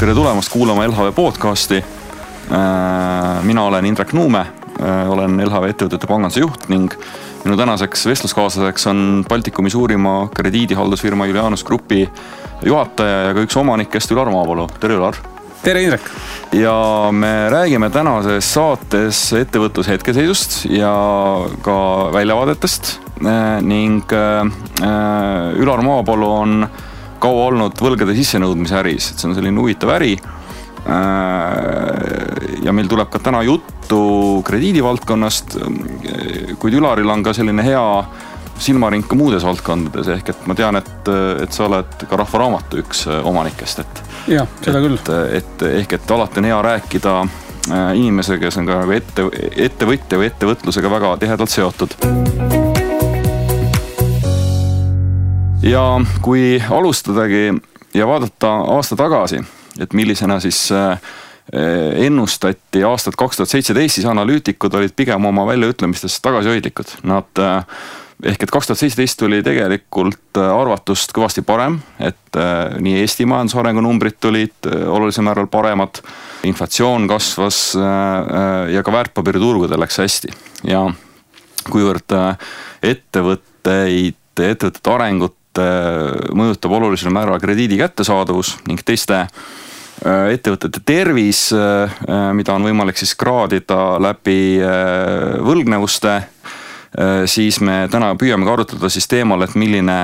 tere tulemast kuulama LHV podcasti. Mina olen Indrek Nuume, olen LHV ettevõtete panganduse juht ning minu tänaseks vestluskaaslaseks on Baltikumi suurima krediidihaldusfirma Julianus Grupi juhataja ja ka üks omanikest Ülar Maapalu. Tere Ülar! Tere Indrek! Ja me räägime tänases saates ettevõtluse hetkeseisust ja ka väljavaadetest ning Ülar Maapalu on kaua olnud võlgade sissenõudmise äris, et see on selline huvitav äri ja meil tuleb ka täna juttu krediidivaldkonnast, kuid Ülaril on ka selline hea silmaring ka muudes valdkondades, ehk et ma tean, et sa oled ka Rahvaraamatu üks omanikest, ja, seda küll. Ehk et alati on hea rääkida inimesega, kes on ka ettevõtja või ettevõtlusega väga tihedalt seotud. Ja kui alustadagi ja vaadata aasta tagasi, et millisena siis ennustati aastat 2017, siis analüütikud olid pigem oma väljaütlemistes tagasihoidlikud. Ehk et 2017 tuli tegelikult arvatust kõvasti parem, et nii Eesti majandusarengu numbrid tulid olulisel määral paremad, inflatsioon kasvas ja ka väärtpaberiturgudel läks hästi. Ja kuivõrd ettevõtete arengut mõjutab olulisel määral krediidi kättesaadavus ning teiste ettevõtete tervis, mida on võimalik siis kraadida läbi võlgnevuste, siis me täna püüame ka arutada siis teemal, et milline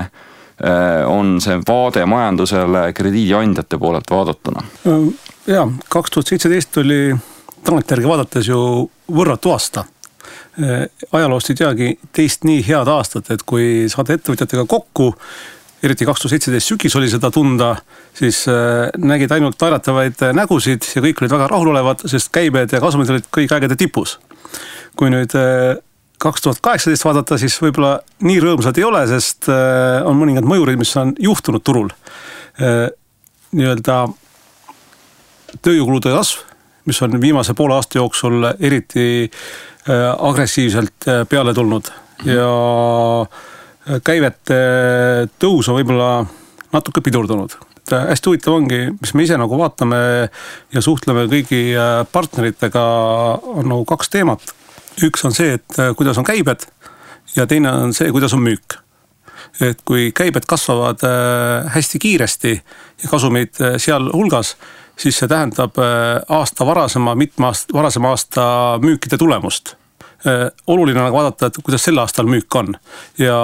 on see vaade majandusele krediidiandjate poolelt vaadatuna. Ja, 2017 oli tagantjärgi vaadates ju võrratu aasta. Ajaloost ei teagi teist nii head aastat, et kui saada ettevõtjatega kokku, eriti 2017 sügis oli seda tunda, siis nägid ainult naeratavaid nägusid ja kõik olid väga rahulolevad, sest käibed ja kasumid olid kõik aegade tipus. Kui nüüd 2018 vaadata, siis võib-olla nii rõõmsad ei ole, sest on mõningad mõjurid, mis on juhtunud turul. Nii-öelda tööjõukulude kasv, mis on viimase poole aasta jooksul eriti agressiivselt peale tulnud ja käivete tõus on võib-olla natuke pidurdunud. Hästi huvitav ongi, mis me ise nagu vaatame ja suhtleme kõigi partneritega, on nagu kaks teemat. Üks on see, et kuidas on käibed ja teine on see, kuidas on müük. Et kui käibed kasvavad hästi kiiresti ja kasumid seal hulgas, siis see tähendab aasta varasema aasta müükide tulemust. Oluline on vaadata, et kuidas sel aastal müük on. Ja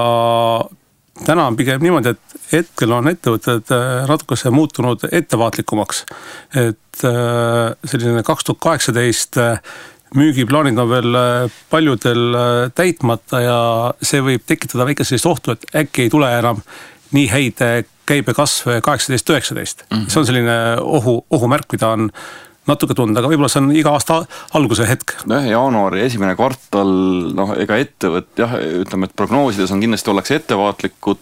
täna on pigem niimoodi, et hetkel on ettevõtted natukese muutunud ettevaatlikumaks. Et selline 2018 müügiplaanid on veel paljudel täitmata ja see võib tekitada väike sellist ohtu, et äkki ei tule enam nii häid käibekasv 18-19. See on selline ohumärk, mida on natuke tunda, aga võib-olla see on iga aasta alguse hetk. Jaanuari esimene kvartal, ega ütleme, et prognoosides on kindlasti ollakse ettevaatlikud,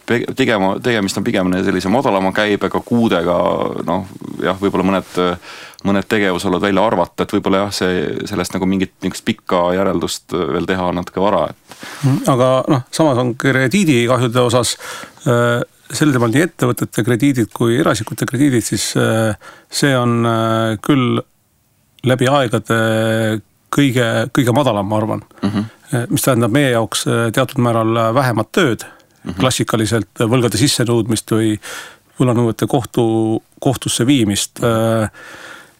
tegemist on pigem sellise madalama käibega, kuudega, võib-olla mõned tegevusolud välja arvata, et võib-olla sellest nagu mingit pikka järeldust veel teha natuke vara. Aga samas on krediidikahjude osas sel teemal nii ettevõtete krediidid kui erasikute krediidid, siis see on küll läbi aegade kõige madalam, ma arvan. Mis tähendab meie jaoks teatud määral vähemat tööd, klassikaliselt võlgade sissenõudmist või võlanõuete kohtusse viimist.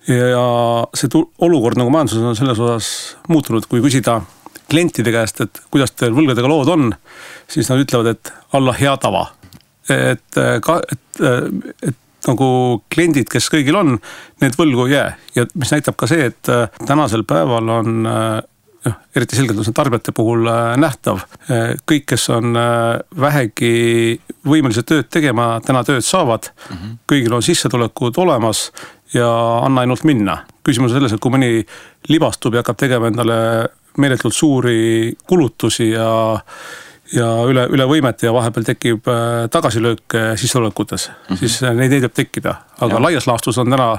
Ja see olukord nagu majanduses on selles osas muutunud, kui küsida klientide käest, et kuidas teil võlgadega lood on, siis nad ütlevad, et alla hea tava. Et nagu kliendid, kes kõigil on, need võlgu ei jää. Ja mis näitab ka see, et tänasel päeval on eriti selgelt on see tarbijate puhul nähtav. Kõik, kes on vähegi võimelised tööd tegema, täna tööd saavad, kõigil on sissetulekud olemas ja anna ainult minna. Küsimus on selles, et kui mõni libastub ja hakkab tegema endale meeletult suuri kulutusi ja üle võimet ja vahepeal tekib tagasilöök sissetulekutes, siis neid võib tekkida. Aga laias laastus on täna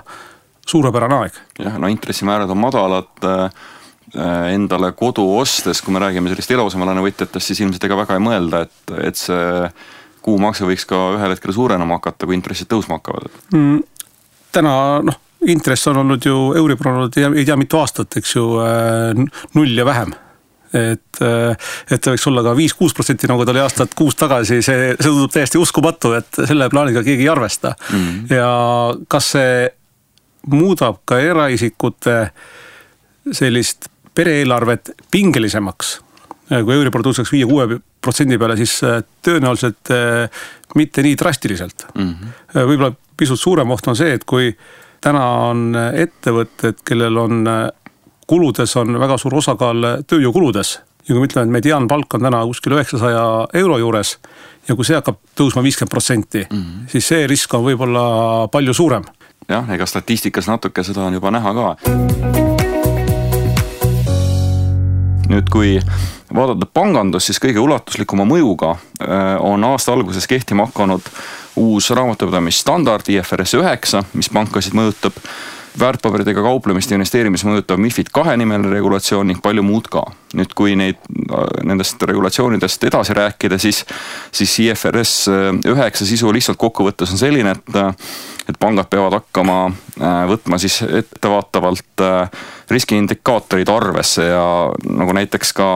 suurepärane aeg. Intressimäärad on madalad, endale kodu ostes, kui me räägime sellist eluasemelaenu võtjatest, siis ilmselt ega väga ei mõelda, et see kuumakse võiks ka ühel hetkel suurenema hakata, kui intressid tõusma hakkavad. täna intress on olnud ju, Euribor on olnud ei tea mitu aastat, eks ju, 0 ja vähem. Et ta võiks olla ka 5-6%, nagu ta oli aastat 6 tagasi, see tundub täiesti uskumatu, et selle plaaniga keegi ei arvesta. Ja kas see muudab ka eraisikute sellist pereeelarvet pingelisemaks? Kui Euribor tõuseks 5-6% peale, siis tõenäoliselt mitte nii drastiliselt. Võib-olla pisut suurem oht on see, et kui täna on ettevõtted, kellel on kuludes on väga suur osakaal tööjõukuludes. Ja kui me ütleme, et mediaanpalk on täna kuskil 900 euro juures ja kui see hakkab tõusma 50%, siis see risk on võib-olla palju suurem. Jah, ega statistikas natuke seda on juba näha ka. Nüüd, kui vaadata pangandus, siis kõige ulatuslikuma mõjuga on aasta alguses kehtima hakanud uus raamatupidamisstandard IFRS 9, mis pankasid mõjutab, väärtpaberidega kauplemist ja investeerimis mõjutab MiFID 2 nimeline regulatsioon ning palju muud ka. Nüüd, kui nendest regulatsioonidest edasi rääkida, siis IFRS 9 sisu lihtsalt kokkuvõttes on selline, et pangad peavad hakkama võtma siis ettevaatavalt riskiindikaatorid arvesse ja nagu näiteks ka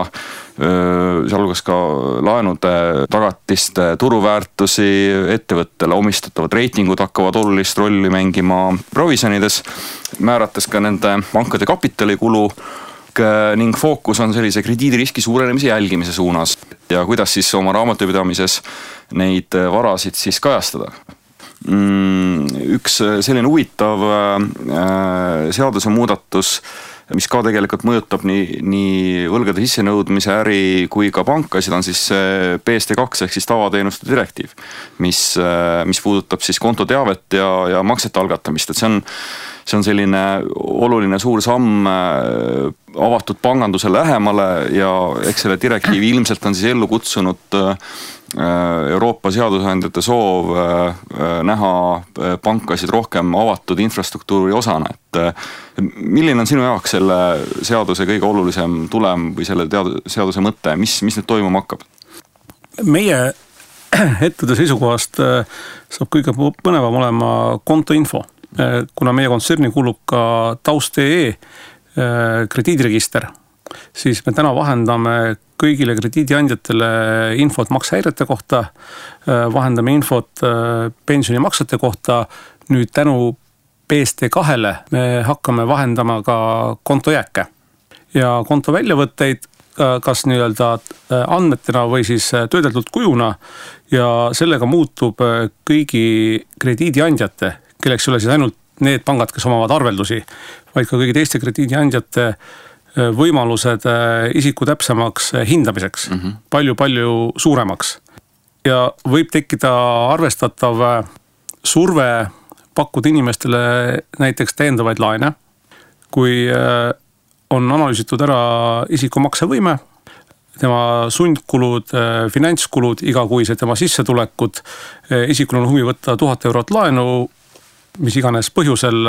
sealhulgas ka laenude tagatiste turuväärtusi, ettevõttele omistatavad reitingud hakkavad olulist rolli mängima provisjonides, määrates ka nende pankade kapitalikulu ning fookus on sellise krediidiriski suurenemise jälgimise suunas ja kuidas siis oma raamatupidamises neid varasid siis kajastada. Üks selline huvitav seaduse muudatus, mis ka tegelikult mõjutab nii võlgade sissenõudmise äri kui ka pankasid, on siis PSD2 ehk siis tavateenuste direktiiv, mis puudutab siis kontoteavet ja maksete algatamist, et see on selline oluline suur samm avatud panganduse lähemale ja eks selle direktiivi ilmselt on siis ellu kutsunud Euroopa seadusandjate soov näha pankasid rohkem avatud infrastruktuuri osana, et milline on sinu jaoks selle seaduse kõige olulisem tulem või selle seaduse mõte, mis nüüd toimuma hakkab? Meie ettevõtte seisukohast saab kõige põnevam olema kontoinfo, kuna meie kontserni kuulub ka taust.ee krediidiregister, siis me täna vahendame kõigile krediidiandjatele infot maksehäirete kohta, vahendame infot pensionimaksete kohta, nüüd tänu PSD2-le me hakkame vahendama ka kontojääke ja konto väljavõtteid kas nii-öelda andmetena või siis töödeldud kujuna ja sellega muutub kõigi krediidiandjate, kelleks ei ole siis ainult need pangad, kes omavad arveldusi, vaid ka kõigi teiste krediidiandjate võimalused isiku täpsemaks hindamiseks, palju-palju suuremaks. Ja võib tekkida arvestatav surve pakkuda inimestele näiteks täiendavaid laene, kui on analüüsitud ära isiku maksevõime, tema sundkulud, finantskulud, igakuised tema sissetulekud, isikul on huvi võtta 1000 eurot laenu, mis iganes põhjusel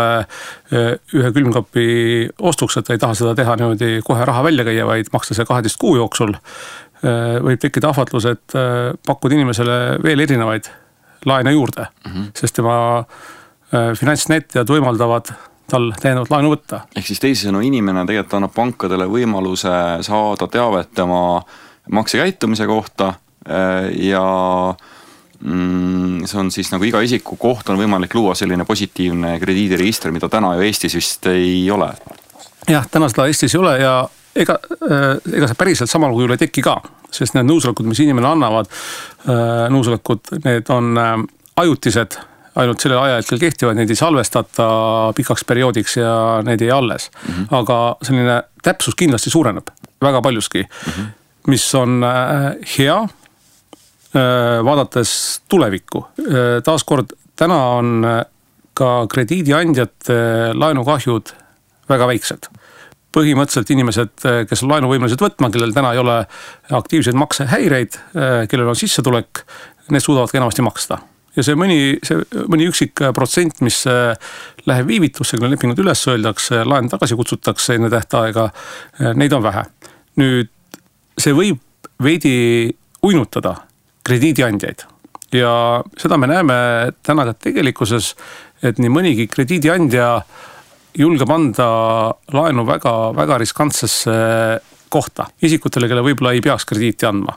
ühe külmkapi ostuks, et ta ei taha seda teha niimoodi kohe raha välja käia, vaid maksta see 12 kuu jooksul, võib tekkida ahvatlus, et pakkuda inimesele veel erinevaid laene juurde, sest tema finantsnäitajad võimaldavad tal täiendavat laenu võtta. Ehk siis teisisõnu inimene tegelikult annab pankadele võimaluse saada teavet tema maksekäitumise kohta ja see on siis nagu iga isiku koht on võimalik luua selline positiivne krediidiregister, mida täna ju Eestis vist ei ole. Jah, täna seda Eestis ei ole ja ega see päriselt samal kujul ei teki ka, sest need nõusolekud, mis inimene annavad, nõusolekud, need on ajutised, ainult sellel ajahetkel kehtivad, neid ei salvestata pikaks perioodiks ja need ei alles. Aga selline täpsus kindlasti suureneb väga paljuski, mis on hea, vaadates tulevikku. Taaskord, täna on ka krediidiandjate laenukahjud väga väiksed. Põhimõtteliselt inimesed, kes on laenuvõimelised võtma, kellel täna ei ole aktiivseid maksehäireid, kellel on sissetulek, need suudavad enamasti maksta. Ja see mõni üksik protsent, mis läheb viivitusse, kui lepingud üles öeldakse, laen tagasi kutsutakse enne tähtaega, neid on vähe. Nüüd see võib veidi uinutada krediidiandjaid ja seda me näeme täna ka tegelikkuses, et nii mõnigi krediidiandja julgeb anda laenu väga, väga riskantsesse kohta isikutele, kelle võib-olla ei peaks krediiti andma.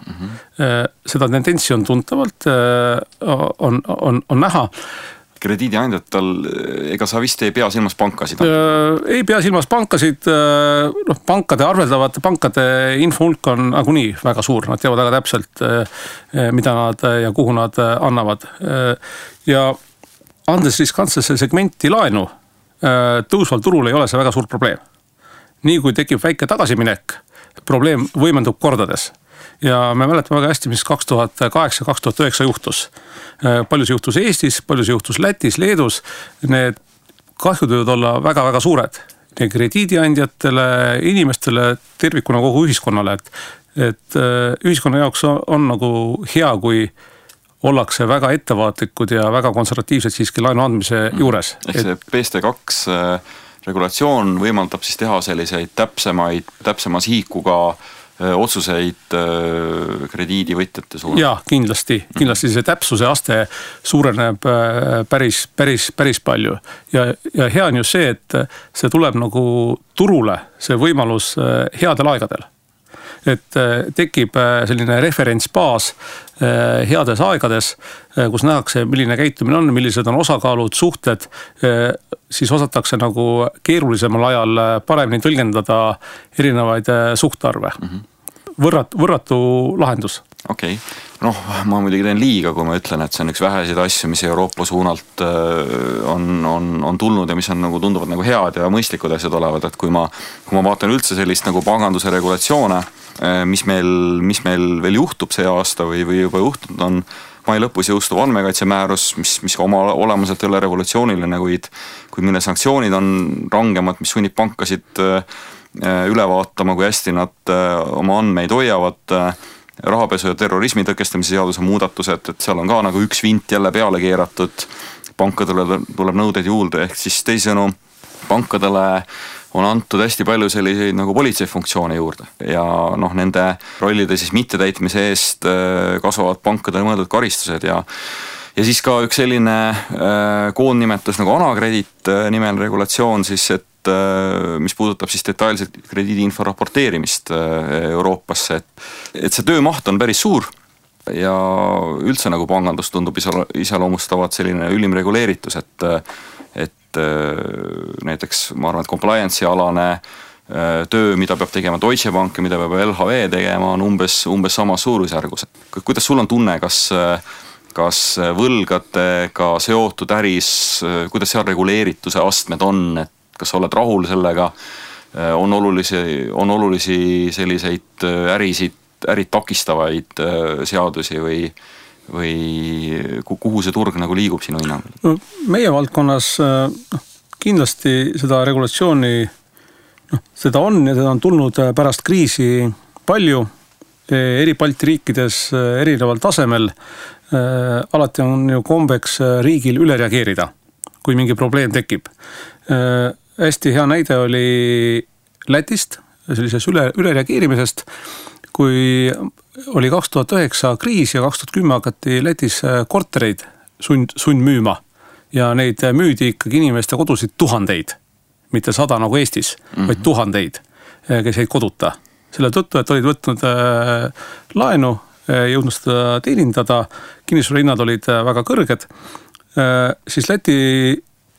Seda tendentsi on tuntavalt, on näha. Krediidiandjatel, ega sa vist ei pea silmas pankasid? Ei pea silmas pankasid, pankade arveldavate pankade infohulk on nagunii väga suur, nad teavad väga täpselt, mida nad ja kuhu nad annavad. Ja andes riskantsesse segmenti laenu, tõusval turul ei ole see väga suur probleem. Nii kui tekib väike tagasiminek, probleem võimendub kordades. Ja me mäletame väga hästi, mis 2008-2009 juhtus. Palju see juhtus Eestis, palju see juhtus Lätis, Leedus. Need kahjud võivad olla väga-väga suured. Nii krediidiandjatele, inimestele, tervikuna kogu ühiskonnale. Et ühiskonna jaoks on nagu hea, kui ollakse väga ettevaatlikud ja väga konservatiivsed siiski laenu andmise juures. Ehk see PST2 regulatsioon võimaldab siis teha selliseid täpsema sihikuga otsuseid krediidivõtjate suunas? Jaa, kindlasti see täpsuse aste suureneb päris palju. Ja hea on ju see, et see tuleb nagu turule, see võimalus headel aegadel. Et tekib selline referentsbaas heades aegades, kus nähakse, milline käitumine on, millised on osakaalud, suhted, siis osatakse nagu keerulisemal ajal paremini tõlgendada erinevaid suhtarve. Võrratu lahendus. Okei. Noh, ma muidugi teen liiga, kui ma ütlen, et see on üks väheseid asju, mis Euroopa suunalt on tulnud ja mis on nagu tunduvad nagu head ja mõistlikud asjad olevad, et kui ma vaatan üldse sellist nagu panganduse regulatsioone, mis meil veel juhtub see aasta või juba juhtunud on mai lõpus jõustuv andmekaitsemäärus, mis oma olemuselt ei ole revolutsiooniline, kuid mille sanktsioonid on rangemad, mis sunnib pankasid üle vaatama, kui hästi nad oma andmeid hoiavad, rahapesu ja terrorismi tõkestamise seaduse muudatused, et seal on ka nagu üks vint jälle peale keeratud, pankadele tuleb nõudeid juurde, ehk siis teisisõnu pankadele on antud hästi palju selliseid nagu politseifunktsioone juurde ja noh, nende rollide siis mittetäitmise eest kasvavad pankadele mõeldud karistused ja siis ka üks selline koondnimetus nagu Anakredit nimel regulatsioon siis, et mis puudutab siis detailselt krediidiinfo raporteerimist Euroopasse, et see töömaht on päris suur ja üldse nagu pangandus tundub iseloomustavat selline ülim reguleeritus, et näiteks ma arvan, et compliance'i alane töö, mida peab tegema Deutsche Bank ja mida peab LHV tegema, on umbes samas suurusjärgus. Kuidas sul on tunne, kas võlgadega seotud äris, kuidas seal reguleerituse astmed on, et kas sa oled rahul sellega, on olulisi selliseid ärid takistavaid seadusi või kuhu see turg nagu liigub sinu hinnangul? Meie valdkonnas kindlasti seda regulatsiooni, seda on ja seda on tulnud pärast kriisi palju, eri Balti riikides erineval tasemel. Alati on ju kombeks riigil üle reageerida, kui mingi probleem tekib. Hästi hea näide oli Lätist, sellises üle reageerimisest, kui oli 2009 kriis ja 2010 hakati Lätis kortereid sund müüma ja neid müüdi ikkagi inimeste kodusid tuhandeid, mitte 100 nagu Eestis, vaid tuhandeid, kes jäid koduta. Selle tõttu, et olid võtnud laenu, jõudnud seda teenindada, kinnisvarahinnad olid väga kõrged, siis Läti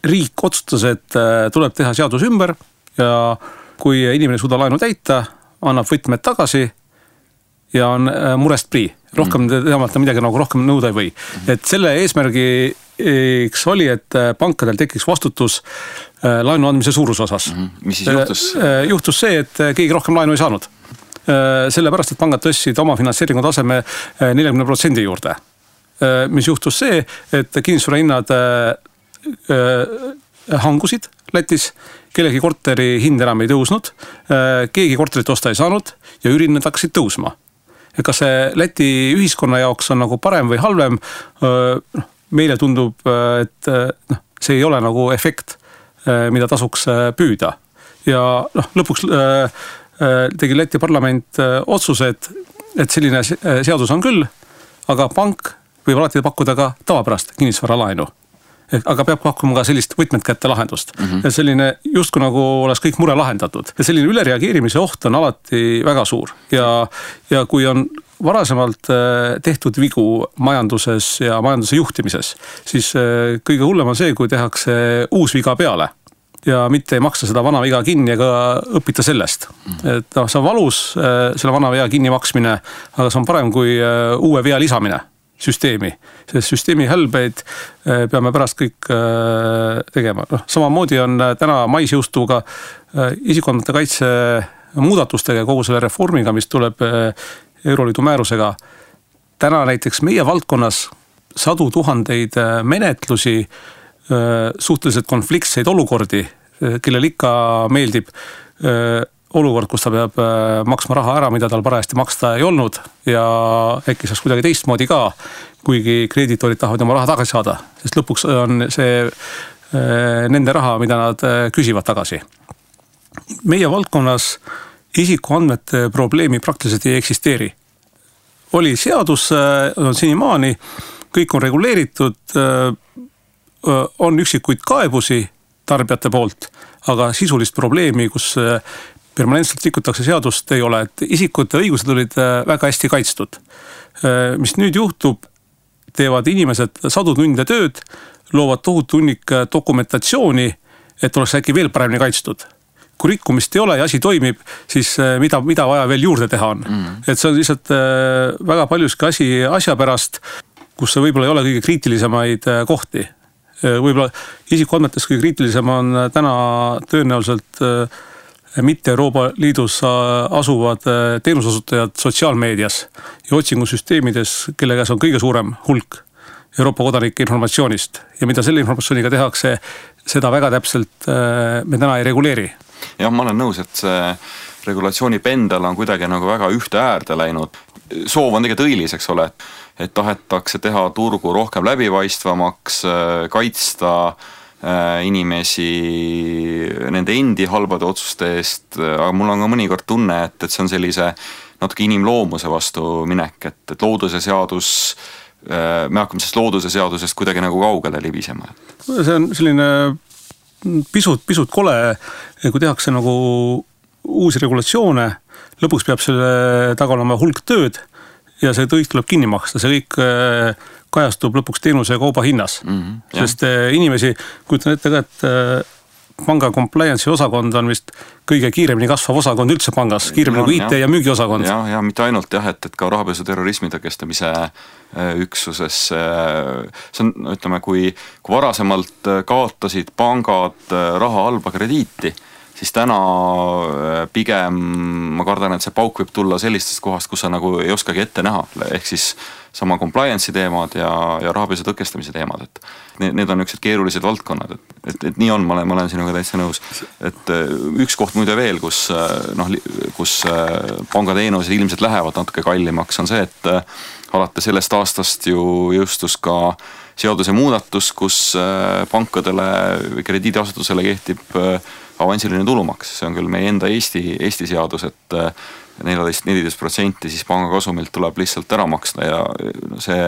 riik otsustas, et tuleb teha seadus ümber ja kui inimene suuda laenu täita, annab võtmed tagasi ja on murest prii. Rohkem teamata midagi nagu rohkem nõuda ei või. Et selle eesmärgiks oli, et pankadel tekiks vastutus laenu andmise suuruse osas. Mis siis juhtus? Juhtus see, et keegi rohkem laenu ei saanud. Sellepärast, et pangad tõstsid oma finantseeringu taseme 40% juurde. Mis juhtus see, et kinnisvarahinnad hangusid Lätis, kellegi korteri hind enam ei tõusnud, keegi korterit osta ei saanud ja üürihinnad hakkasid tõusma. Ja kas see Läti ühiskonna jaoks on nagu parem või halvem, meile tundub, et see ei ole nagu efekt, mida tasuks püüda. Ja lõpuks tegi Läti parlament otsuse, et selline seadus on küll, aga pank võib alati pakkuda ka tavapärast kinnisvaralaenu. aga peab pakkuma ka sellist võtmed kätte lahendust. Ja selline justkui nagu oleks kõik mure lahendatud. Ja selline ülereageerimise oht on alati väga suur. Ja kui on varasemalt tehtud vigu majanduses ja majanduse juhtimises, siis kõige hullem on see, kui tehakse uus viga peale. Ja mitte ei maksa seda vana viga kinni ega õpita sellest. Et see on valus, selle vana vea kinni maksmine, aga see on parem kui uue vea lisamine süsteemi. Sest süsteemi hälbeid peame pärast kõik tegema. Samamoodi on täna mais jõustuga isikuandmete kaitse muudatustega ja kogu selle reformiga, mis tuleb Euroliidu määrusega. Täna näiteks meie valdkonnas 100 000 menetlusi, suhteliselt konfliktseid olukordi, kellel ikka meeldib olukord, kus ta peab maksma raha ära, mida tal parajasti maksta ei olnud ja äkki saaks kuidagi teistmoodi ka, kuigi krediitorid tahavad oma raha tagasi saada, sest lõpuks on see nende raha, mida nad küsivad tagasi. Meie valdkonnas isikuandmete probleemi praktiliselt ei eksisteeri. Oli seadus, on senimaani, kõik on reguleeritud, on üksikuid kaebusi tarbijate poolt, aga sisulist probleemi, kus permanentselt rikutakse seadust ei ole, et isikute õigused olid väga hästi kaitstud. Mis nüüd juhtub, teevad inimesed 100 tunde tööd, loovad tohutu hunnik dokumentatsiooni, et oleks äkki veel paremini kaitstud. Kui rikkumist ei ole ja asi toimib, siis mida vaja veel juurde teha on. Et see on lihtsalt väga paljuski asja pärast, kus see võib-olla ei ole kõige kriitilisemaid kohti. Võib-olla isikuandmetes kõige kriitilisem on täna tõenäoliselt mitte Euroopa Liidus asuvad teenusasutajad sotsiaalmeedias ja otsingusüsteemides, kelle käes on kõige suurem hulk Euroopa kodanike informatsioonist. Ja mida selle informatsiooniga tehakse, seda väga täpselt me täna ei reguleeri. Jah, ma olen nõus, et see regulatsiooni pendel on kuidagi nagu väga ühte äärde läinud. Soov on tegelikult õilis, eks ole, et tahetakse teha turgu rohkem läbipaistvamaks, kaitsta inimesi nende endi halbade otsuste eest, aga mul on ka mõnikord tunne, et see on sellise natuke inimloomuse vastu minek, et looduse seadus, me hakkame sellest looduse seadusest kuidagi nagu kaugele libisema. See on selline pisut kole, kui tehakse nagu uusi regulatsioone, lõpuks peab selle taga olema hulk tööd ja see kõik tuleb kinni maksta, see kõik kajastub lõpuks teenuse ja kauba hinnas. Sest inimesi, kujutan ette ka, et panga compliance'i osakond on vist kõige kiiremini kasvav osakond üldse pangas, kiiremini kui IT ja müügiosakond. Ja mitte ainult et ka rahapesu terrorismi tõkestamise üksuses. See on, ütleme, kui varasemalt kaotasid pangad raha halba krediiti, siis täna pigem ma kardan, et see pauk võib tulla sellistest kohast, kus sa nagu ei oskagi ette näha. Ehk siis sama compliance'i teemad ja rahapesu tõkestamise teemad. Et need on niisugused keerulised valdkonnad. Et nii on, ma olen sinuga täitsa nõus. Et üks koht muide veel, kus pangateenused ilmselt lähevad natuke kallimaks, on see, et alates sellest aastast ju jõustus ka seaduse muudatus, kus pankadele või krediidiasutusele kehtib avansiline tulumaks. See on küll meie enda Eesti seadus, et 14% siis panga kasumilt tuleb lihtsalt ära maksta ja see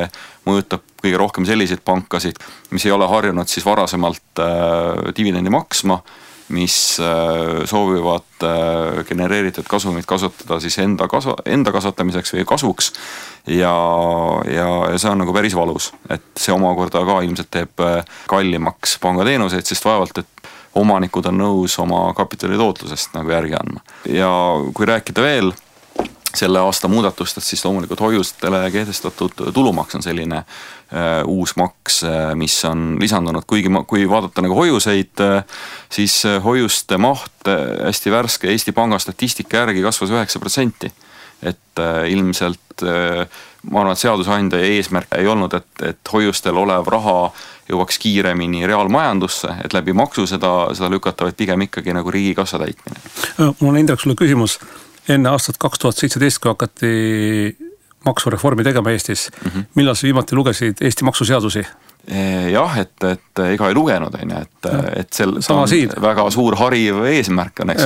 mõjutab kõige rohkem selliseid pankasid, mis ei ole harjunud siis varasemalt dividendi maksma, mis soovivad genereeritud kasumit kasutada siis enda kasvatamiseks või kasvuks ja see on nagu päris valus, et see omakorda ka ilmselt teeb kallimaks pangateenuseid, sest vaevalt, et omanikud on nõus oma kapitali tootlusest nagu järgi andma. Ja kui rääkida veel selle aasta muudatustest, siis loomulikult hoiustele kehtestatud tulumaks on selline uus maks, mis on lisandunud, kuigi kui vaadata nagu hoiuseid, siis hoiuste maht hästi värske Eesti Panga statistika järgi kasvas 9%. Et ilmselt ma arvan, et seadusandja eesmärk ei olnud, et hoiustel olev raha jõuaks kiiremini reaalmajandusse, et läbi maksu seda lükata, vaid pigem ikkagi nagu riigikassa täitmine. Mul on Indrek sulle küsimus. Enne aastat 2017, kui hakati maksureformi tegema Eestis, millal sa viimati lugesid Eesti maksuseadusi? jah, et ega ei lugenud, et see on väga suur hariv eesmärk on, eks.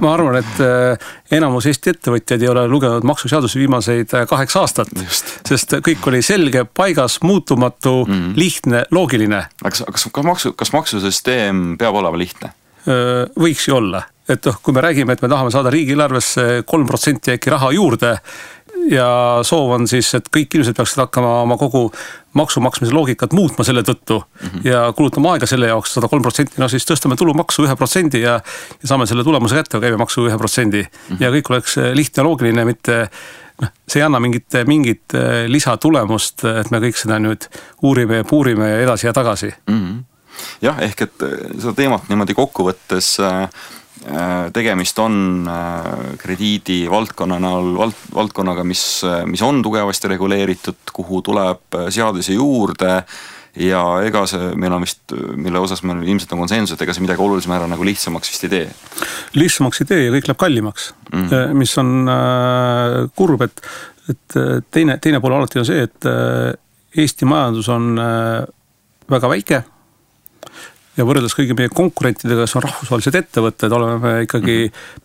Ma arvan, et enamus Eesti ettevõtjaid ei ole lugenud maksuseadusi viimaseid 8 aastat, sest kõik oli selge, paigas, muutumatu, lihtne, loogiline. Kas maksusüsteem peab olema lihtne? Võiks ju olla. Et kui me räägime, et me tahame saada riigieelarvesse 3% äkki raha juurde ja soov on siis, et kõik inimesed peaksid hakkama oma kogu maksumaksmise loogikat muutma selle tõttu ja kulutama aega selle jaoks 103%, no siis tõstame tulumaksu 1% ja saame selle tulemuse kätte käibemaksu 1% ja kõik oleks lihtne ja loogiline, mitte see ei anna mingit lisatulemust, et me kõik seda nüüd uurime ja puurime ja edasi ja tagasi. Jah, ehk et seda teemat niimoodi kokkuvõttes tegemist on krediidi valdkonnaga, mis on tugevasti reguleeritud, kuhu tuleb seadusi juurde ja ega see meil on vist, mille osas meil ilmselt on konsensus, et ega see midagi olulisem ära nagu lihtsamaks vist ei tee. Lihtsamaks ei tee ja kõik läheb kallimaks, mis on kurb, et teine pool alati on see, et Eesti majandus on väga väike ja võrreldes kõigi meie konkurentidega, kes on rahvusvahelised ettevõtted, oleme me ikkagi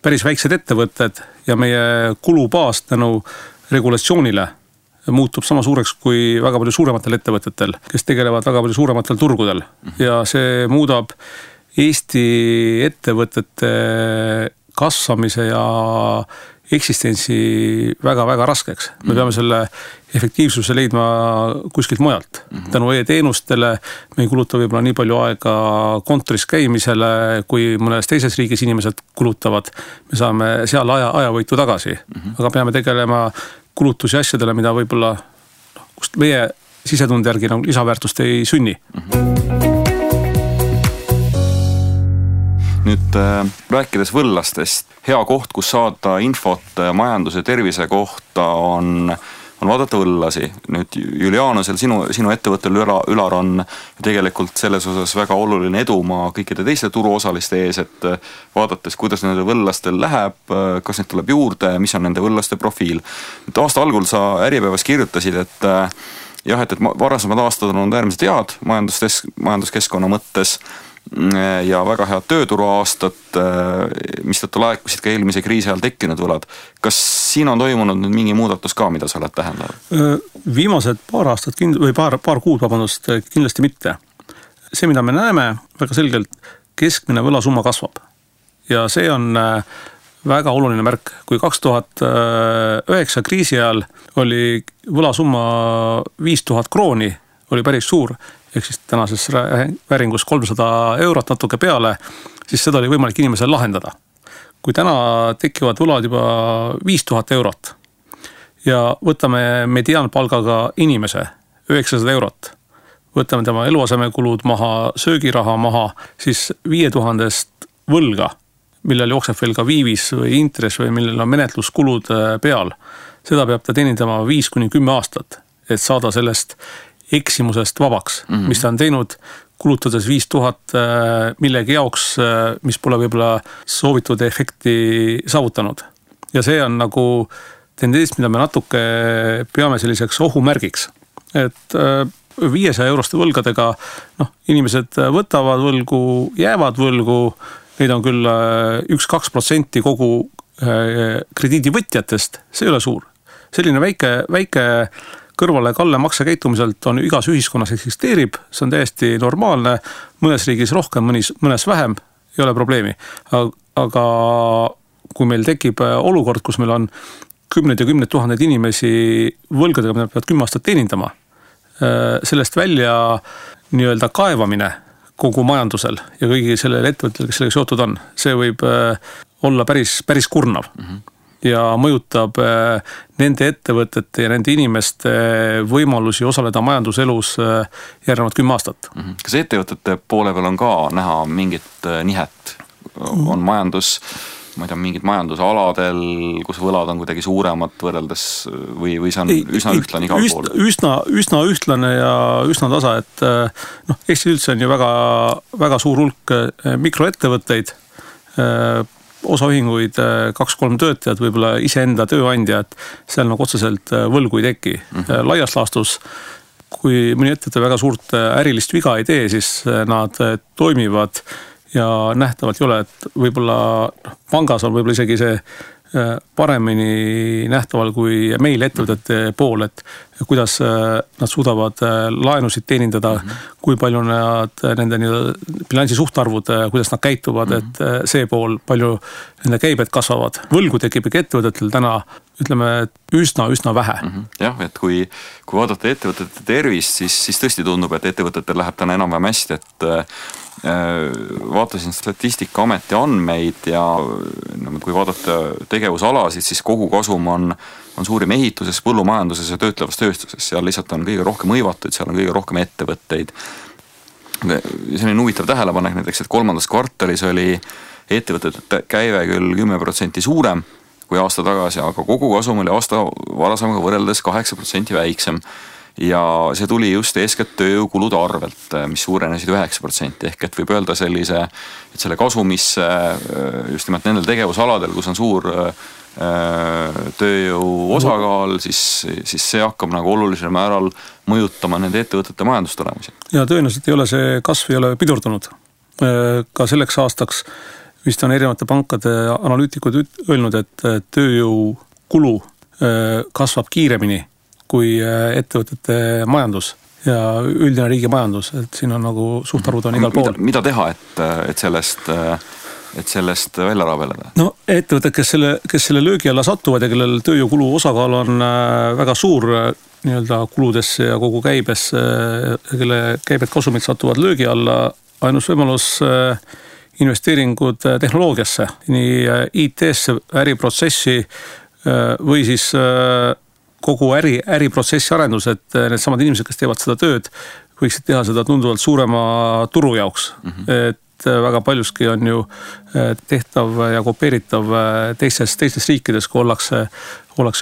päris väiksed ettevõtted ja meie kulubaas tänu regulatsioonile muutub sama suureks kui väga palju suurematel ettevõtetel, kes tegelevad väga palju suurematel turgudel. Ja see muudab Eesti ettevõtete kasvamise ja eksistentsi väga-väga raskeks. Me peame selle efektiivsuse leidma kuskilt mujalt. Tänu e-teenustele me ei kuluta võib-olla nii palju aega kontoris käimisele, kui mõnes teises riigis inimesed kulutavad. Me saame seal ajavõitu tagasi. Aga peame tegelema kulutusi asjadele, mida võib-olla kust meie sisetunde järgi lisaväärtust ei sünni. Nüüd rääkides võllastest, hea koht, kus saada infot majanduse tervise kohta on vaadata võllasi. Nüüd Julianusel, sinu ettevõttel Ülar on tegelikult selles osas väga oluline edumaa kõikide teiste turuosaliste ees, et vaadates, kuidas nende võllastel läheb, kas need tuleb juurde, mis on nende võllaste profiil. Nüüd aasta algul sa Äripäevas kirjutasid, et jah, et varasemad aastad on olnud äärmiselt head majanduskeskkonna mõttes ja väga head tööturu aastat, mistõttu laekusid ka eelmise kriisi ajal tekkinud võlad. Kas siin on toimunud nüüd mingi muudatus ka, mida sa oled tähendanud? Viimased paar aastat või paar kuud, kindlasti mitte. See, mida me näeme väga selgelt, keskmine võlasumma kasvab. Ja see on väga oluline märk. Kui 2009 kriisi ajal oli võlasumma 5000 krooni, oli päris suur, ehk siis tänases vääringus 300 eurot natuke peale, siis seda oli võimalik inimesel lahendada. Kui täna tekivad võlad juba 5000 eurot ja võtame mediaanpalgaga inimese 900 eurot, võtame tema eluasemekulud maha, söögiraha maha, siis 5000 võlga, millel jookseb veel ka viivis või intress või millel on menetluskulud peal, seda peab ta teenindama 5-10 aastat, et saada sellest eksimusest vabaks, mis ta on teinud, kulutades 5000 millegi jaoks, mis pole võib-olla soovitud efekti saavutanud. Ja see on nagu tendents, mida me natuke peame selliseks ohumärgiks. Et 500 euroste võlgadega inimesed võtavad võlgu, jäävad võlgu, neid on küll 1-2% kogu krediidivõtjatest, see ei ole suur. Selline väike kõrvale kalle maksekäitumiselt on igas ühiskonnas eksisteerib, see on täiesti normaalne, mõnes riigis rohkem, mõnes vähem, ei ole probleemi. Aga kui meil tekib olukord, kus meil on 10 ja 10 000 inimesi võlgadega, mida peavad 10 aastat teenindama, sellest välja nii-öelda kaevamine kogu majandusel ja kõigi sellele ettevõttel, kes sellega seotud on, see võib olla päris kurnav. Ja mõjutab nende ettevõtete ja nende inimeste võimalusi osaleda majanduselus järgnevad 10 aastat. Kas ettevõtete poole peal on ka näha mingit nihet? On majandus, ma ei tea, mingid majandusaladel, kus võlad on kuidagi suuremad võrreldes või see on üsna ühtlane igal pool? Üsna ühtlane ja üsna tasa, et Eestis üldse on ju väga suur hulk mikroettevõtteid, osaühinguid 2-3 töötajad, võib-olla iseenda tööandjad, seal nagu otseselt võlgu ei teki. Laias laastus, kui mõni ettevõte väga suurt ärilist viga ei tee, siis nad toimivad ja nähtavalt ei ole, et võib-olla pangas on võib-olla isegi see paremini nähtaval kui meil ettevõtete pool, et kuidas nad suudavad laenusid teenindada, kui palju nad nende bilansi suhtarvud, kuidas nad käituvad, et see pool, palju nende käibed kasvavad. Võlgu tekib ikka ettevõtetel täna, ütleme, üsna vähe. Jah, et kui vaadata ettevõtete tervist, siis tõesti tundub, et ettevõtetel läheb täna enam-vähem hästi, et vaatasin Statistikaameti andmeid ja kui vaadata tegevusalasid, siis kogu kasum on suurim ehituses, põllumajanduses ja töötlevas tööstuses. Seal lihtsalt on kõige rohkem hõivatud, seal on kõige rohkem ettevõtteid. Selline huvitav tähelepanek näiteks, et 3. kvartalis oli ettevõtete käive küll 10% suurem kui aasta tagasi, aga kogu kasum oli aasta varasemaga võrreldes 8% väiksem. Ja see tuli just eeskätt tööjõukulude arvelt, mis suurenesid 9%, ehk et võib öelda et selle kasumisse just nimelt nendel tegevusaladel, kus on suur tööjõu osakaal, siis see hakkab nagu olulisel määral mõjutama nende ettevõtete majandustulemusi. Ja tõenäoliselt ei ole see kasv ei ole pidurdunud. Ka selleks aastaks vist on erinevate pankade analüütikud öelnud, et tööjõukulu kasvab kiiremini kui ettevõtete majandus ja üldine riigi majandus, et siin on nagu suhtarvud on igal pool. Mida teha, et sellest välja rabeleda? No ettevõtted, kes selle löögi alla satuvad ja kellel tööjõukulu osakaal on väga suur nii-öelda kuludesse ja kogu käibesse, kelle käibed kasumid satuvad löögi alla, ainus võimalus investeeringud tehnoloogiasse, nii IT-sse, äriprotsessi või siis kogu äriprotsessi arendus, et need samad inimesed, kes teevad seda tööd, võiksid teha seda tunduvalt suurema turu jaoks. Et väga paljuski on ju tehtav ja kopeeritav teistes riikides, kui ollakse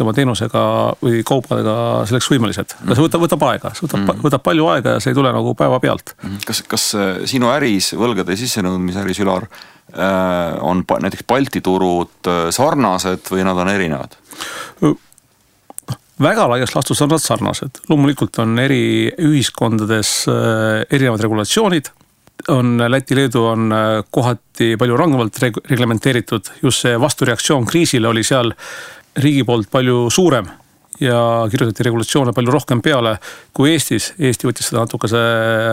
oma teenusega või kaupadega selleks võimelised. See võtab aega, võtab palju aega ja see ei tule nagu päeva pealt. Kas sinu äris, võlgade sissenõudmise äris, Ülar, on näiteks Balti turud sarnased või nad on erinevad? Väga laias laastus on nad sarnased. Loomulikult on eri ühiskondades erinevad regulatsioonid. Läti, Leedu on kohati palju rangemalt reglementeeritud. Just see vastureaktsioon kriisile oli seal riigi poolt palju suurem ja kirjutati regulatsioone palju rohkem peale kui Eestis. Eesti võttis seda natukese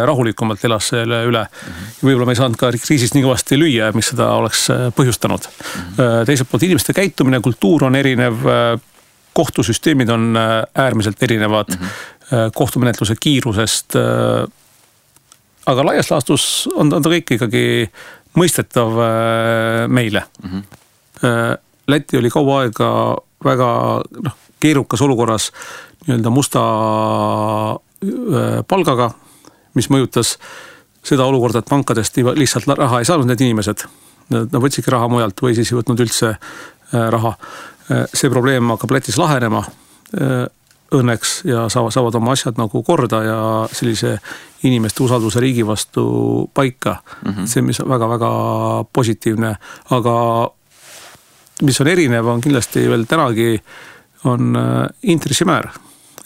rahulikumalt, elas selle üle. Võib-olla me ei saanud ka kriisist nii kõvasti lüüa, mis seda oleks põhjustanud. Teiselt poolt inimeste käitumine, kultuur on erinev, kohtusüsteemid on äärmiselt erinevad kohtumenetluse kiirusest, aga laias laastus on ta kõik ikkagi mõistetav meile. Läti oli kaua aega väga keerukas olukorras nii-öelda musta palgaga, mis mõjutas seda olukorda, et pankadest lihtsalt raha ei saanud need inimesed. Nad võtsidki raha mujalt või siis ei võtnud üldse raha. See probleem hakkab Lätis lahenema õnneks ja saavad oma asjad nagu korda ja sellise inimeste usalduse riigi vastu paika. See, mis on väga-väga positiivne, aga mis on erinev, on kindlasti veel tänagi on intressimäär.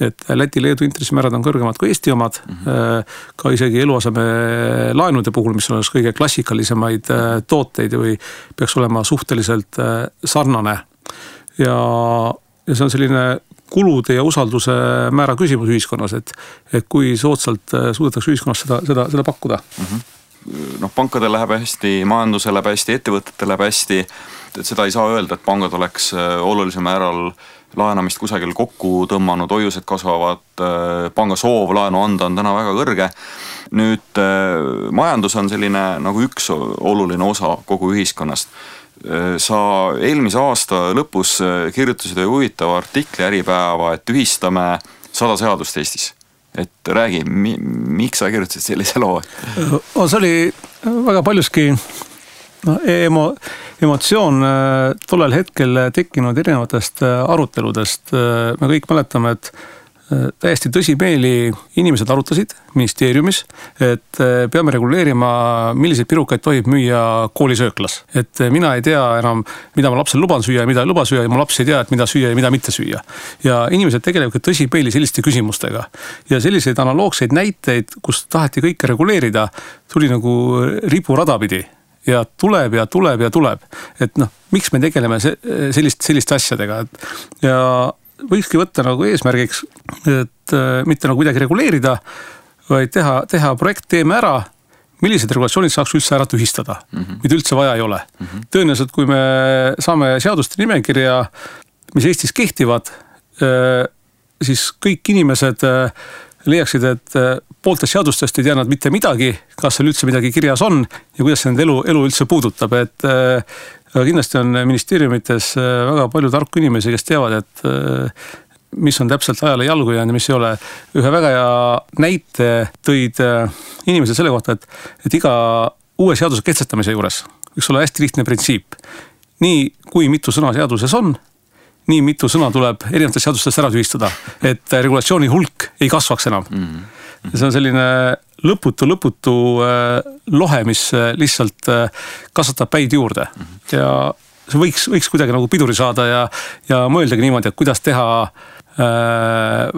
Et Läti, Leedu intressimäärad on kõrgemad kui Eesti omad, ka isegi eluaseme laenude puhul, mis on kõige klassikalisemaid tooteid või peaks olema suhteliselt sarnane. Ja see on selline kulude ja usalduse määra küsimus ühiskonnas, et kui soodsalt suudetakse ühiskonnas seda pakkuda. Pankadel läheb hästi, majandusel läheb hästi, ettevõtetel läheb hästi, et seda ei saa öelda, et pangad oleks olulisel määral laenamist kusagil kokku tõmmanud, hoiused kasvavad, panga soov laenu anda on täna väga kõrge. Nüüd majandus on selline nagu üks oluline osa kogu ühiskonnast. Sa eelmise aasta lõpus kirjutasid huvitava artikli Äripäeva, et ühistame 100 seadust Eestis. Et räägi, miks sa kirjutasid sellise loo? See oli väga paljuski emotsioon tollel hetkel tekkinud erinevatest aruteludest. Me kõik mäletame, et täiesti tõsimeeli inimesed arutasid ministeeriumis, et peame reguleerima, milliseid pirukaid tohib müüa koolisööklas. Et mina ei tea enam, mida ma lapsel luban süüa ja mida ei luba süüa ja mu laps ei tea, et mida süüa ja mida mitte süüa. Ja inimesed tegelevad tõsimeeli selliste küsimustega. Ja selliseid analoogseid näiteid, kus taheti kõike reguleerida, tuli nagu riburada pidi. Ja tuleb. Et miks me tegeleme selliste asjadega. Ja võikski võtta nagu eesmärgiks, et mitte nagu kuidagi reguleerida, vaid teha projekt, teeme ära, millised regulatsioonid saaks üldse ära tühistada, mida üldse vaja ei ole. Tõenäoliselt, kui me saame seaduste nimekirja, mis Eestis kehtivad, siis kõik inimesed leiaksid, et pooltest seadustest ei tea nad mitte midagi, kas seal üldse midagi kirjas on ja kuidas see nende elu üldse puudutab. Et kindlasti on ministeeriumites väga palju tarku inimesi, kes teavad, et mis on täpselt ajale jalgu jäänud ja mis ei ole. Ühe väga hea näite tõid inimesed selle kohta, et iga uue seaduse kehtestamise juures võiks olla hästi lihtne printsiip. Nii kui mitu sõna seaduses on, nii mitu sõna tuleb erinevatest seadustest ära tühistada, et regulatsiooni hulk ei kasvaks enam. See on selline lõputu lohe, mis lihtsalt kasvatab päid juurde. Ja see võiks kuidagi nagu piduri saada ja mõeldagi niimoodi, et kuidas teha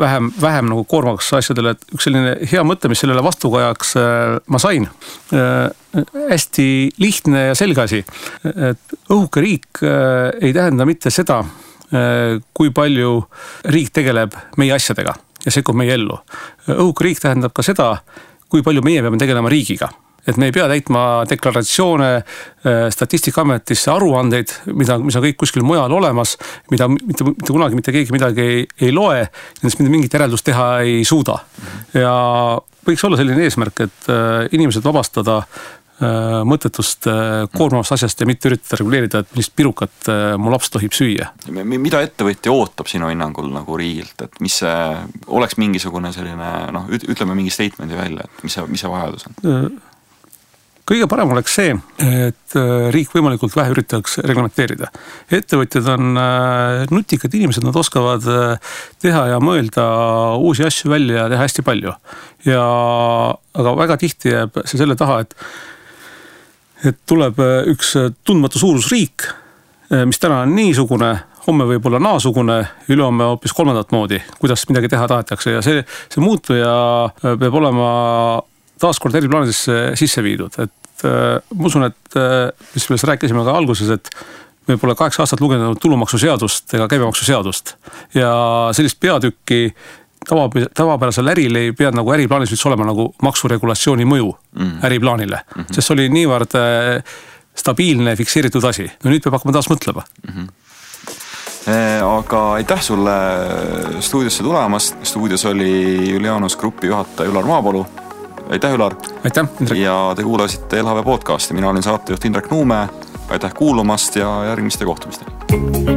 vähem nagu koormaks asjadele. Et üks selline hea mõte, mis sellele vastukajaks ma sain, hästi lihtne ja selge asi, et õhuke riik ei tähenda mitte seda, kui palju riik tegeleb meie asjadega ja sekkub meie ellu. Õhuke riik tähendab ka seda, kui palju meie peame tegelema riigiga. Et me ei pea täitma deklaratsioone Statistikaametisse aruandeid, mis on kõik kuskil mujal olemas, mida mitte kunagi mitte keegi midagi ei loe, nendest mingit järeldust teha ei suuda. Ja võiks olla selline eesmärk, et inimesed vabastada mõttetust koormavast asjast ja mitte üritada reguleerida, et millist pirukat mu laps tohib süüa. Mida ettevõtja ootab sinu hinnangul nagu riigilt, et mis see oleks mingisugune selline, ütleme mingi statemendi välja, et mis see vajadus on? Kõige parem oleks see, et riik võimalikult vähe üritaks reglementeerida. Ettevõtjad on nutikad inimesed, nad oskavad teha ja mõelda uusi asju välja ja teha hästi palju. Aga väga tihti jääb see selle taha, et tuleb üks tundmatu suurusriik, mis täna on niisugune, homme võib olla naasugune, ülehomme hoopis kolmandat moodi, kuidas midagi teha tahetakse. Ja see muutuja peab olema taaskord eri plaanidesse sisse viidud. Et ma usun, et mis me rääkisime ka alguses, et me pole 8 aastat lugenud tulumaksuseadust ega käibemaksuseadust. Ja sellist peatükki tavapärasel äril ei pea nagu äriplaanis üldse olema nagu maksuregulatsiooni mõju äriplaanile. Sest see oli niivõrd stabiilne, fikseeritud asi. No nüüd peab hakkama taas mõtlema. Aga aitäh sulle stuudiosse tulemast. Stuudios oli Julianus Grupi juhataja Ülar Maapalu. Aitäh, Ülar! Aitäh, Indrek! Ja te kuulasite LHV podcasti. Mina olin saatejuht Indrek Nuume. Aitäh kuulumast ja järgmiste kohtumisteni!